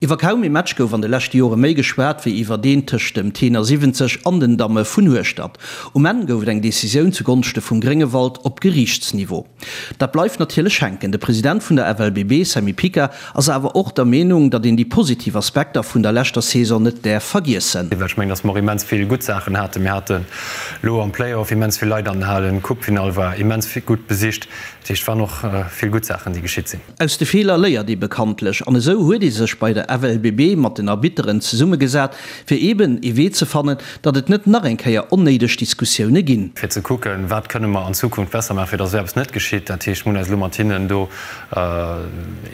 Iwwer kaum ee Match gouf an de leschte Jore méi geschwat wéi iwwer deen tëscht dem Tenor 70 an den Damme vun Hueschtert. Um Enn gouf et eng Decisioun zu Gonschte vum Gréngewald op Geriichtsniveau. Dat bleift natierlech hänken. De President vun der FLBB, Sammy Pica, ass awer och der Meenung, datt een déi positiv Aspekter vun der leschter Saison net däerf vergiessen. Well ech mengen, datt mer och immens vill gutt Saachen haten. Mir haten elo am Play-off immens vill Leit an den Halen, d'Coupefinall war immens gutt besicht. Dat heescht, et waren och vill gutt Saachen, déi geschitt sinn. Aus de Feeler léiert ee bekanntlech, an esou huet ee sech bei der FLBB mat den Arbitteren zesummegesat, fir eeben ee Wee ze fannen, datt et net nach eng Kéier onnéideg Diskussioune ginn. Fir ze kucken, wat kënne mer an Zukunft besser maachen, fir datt esou eppes net geschitt. Dat heescht, mir hunn eis elo mat hinnen do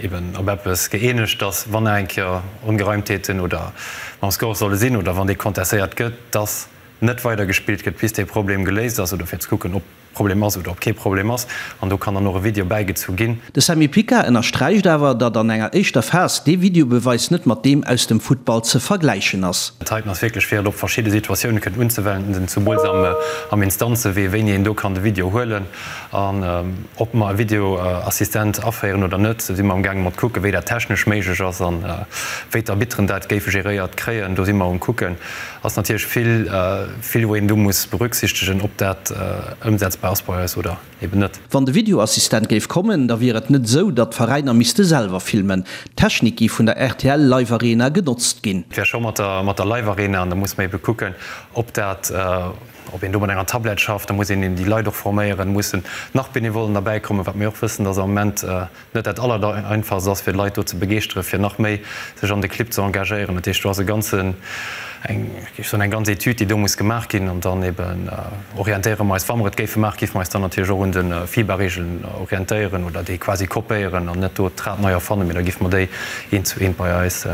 eeben op eppes gëeenegt, datt, wann nach eng Kéier Ongereimtheeten oder mam Score solle sinn oder wann dee contestéiert gëtt, datt net weidergespillt gëtt, bis dee Problem geléist ass, oder fir ze kucken, ob. Problem ass oder ob kee Problem ass, an do kann dann och e Video bäigezu ginn. De Sammy Pica ënnersträicht awer, datt an enger éischter Phas dee Videobeweis net mat deem aus dem Futtball ze vergläichen ass. Dat heiten ass wierklech fir et op verschidde Situatioune kënnen unzewenden, zemools am Instanzewee, wéini een do kann de Video huelen an ob mer e Videoassistent aféieren oder net. Do si mer amgaange mat kucken, wéi dat technesch méiglech ass an wéi d'Arbitteren dat géife geréiert kréien. Do si mer um kucken. Ass natierlech vill. Vill wou een do muss berücksichtegen, ob dat ëmsetzbar ass bei eis oder eben net. Wann de Videoassistent géif kommen, da wier et net esou, datt d'Veräiner misste selwer filmen. D'Technik géif vun der rtl Live Arena genotzt ginn. Et wär scho mat der mat der Live Arena, an da muss mer ebe kucken, ob dat, ob een do mat enger Tablett schafft. Da muss een eben déi Leit och forméieren, mussen nach Benevollen derbäikommen, wat mir och wëssen, datt am Moment net dat Allereinfachst ass, fir d'Leit do ze begeeschteren, fir nach méi sech an de Clibb ze engagéieren. Dat heescht, do ass e ganzen, eng, géif soen, eng ganz Etüd, déi do muss gemaach ginn. An dann eben orientéiere mer eis, wa mer et géife maachen, géife mer eis dann natierlech och un de FIBA-Regeln orientéieren oder déi quasi kopéieren an net do d'Rad nei erfannen, mee da géife mer déi eent zu eent bei eis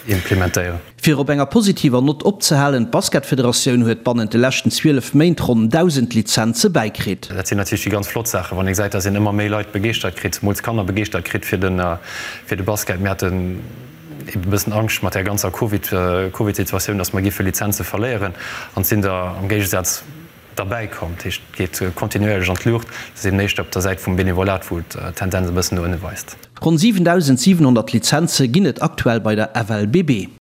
implementéieren. Fir op enger positiver Nott opzehalen, D'Basketfederatioun huet bannent de leschten 12 Méint ronn 1.000 Lizenze bäikritt. Dat sinn natierlech déi ganz flott Saachen, wann ee gesäit, dass een ëmmer méi Leit begeeschtert kritt, zemools Kanner begeeschtert kritt fir de Basket. Mir haten ebe bëssen Angscht mat där ganzer Covid, Covid-Situatioun, dass mer géife Lizenze verléieren an et sinn der am Géigesaz derbäi komm. Dat heescht, et geet kontinuéierlech an d'Luucht. Et ass eben éischter op der Säit vum Benevolat, wou d'Tendenz e bëssen no ënne weist. Ronn 7.700 Lizenze ginn et aktuell bei der FLBB.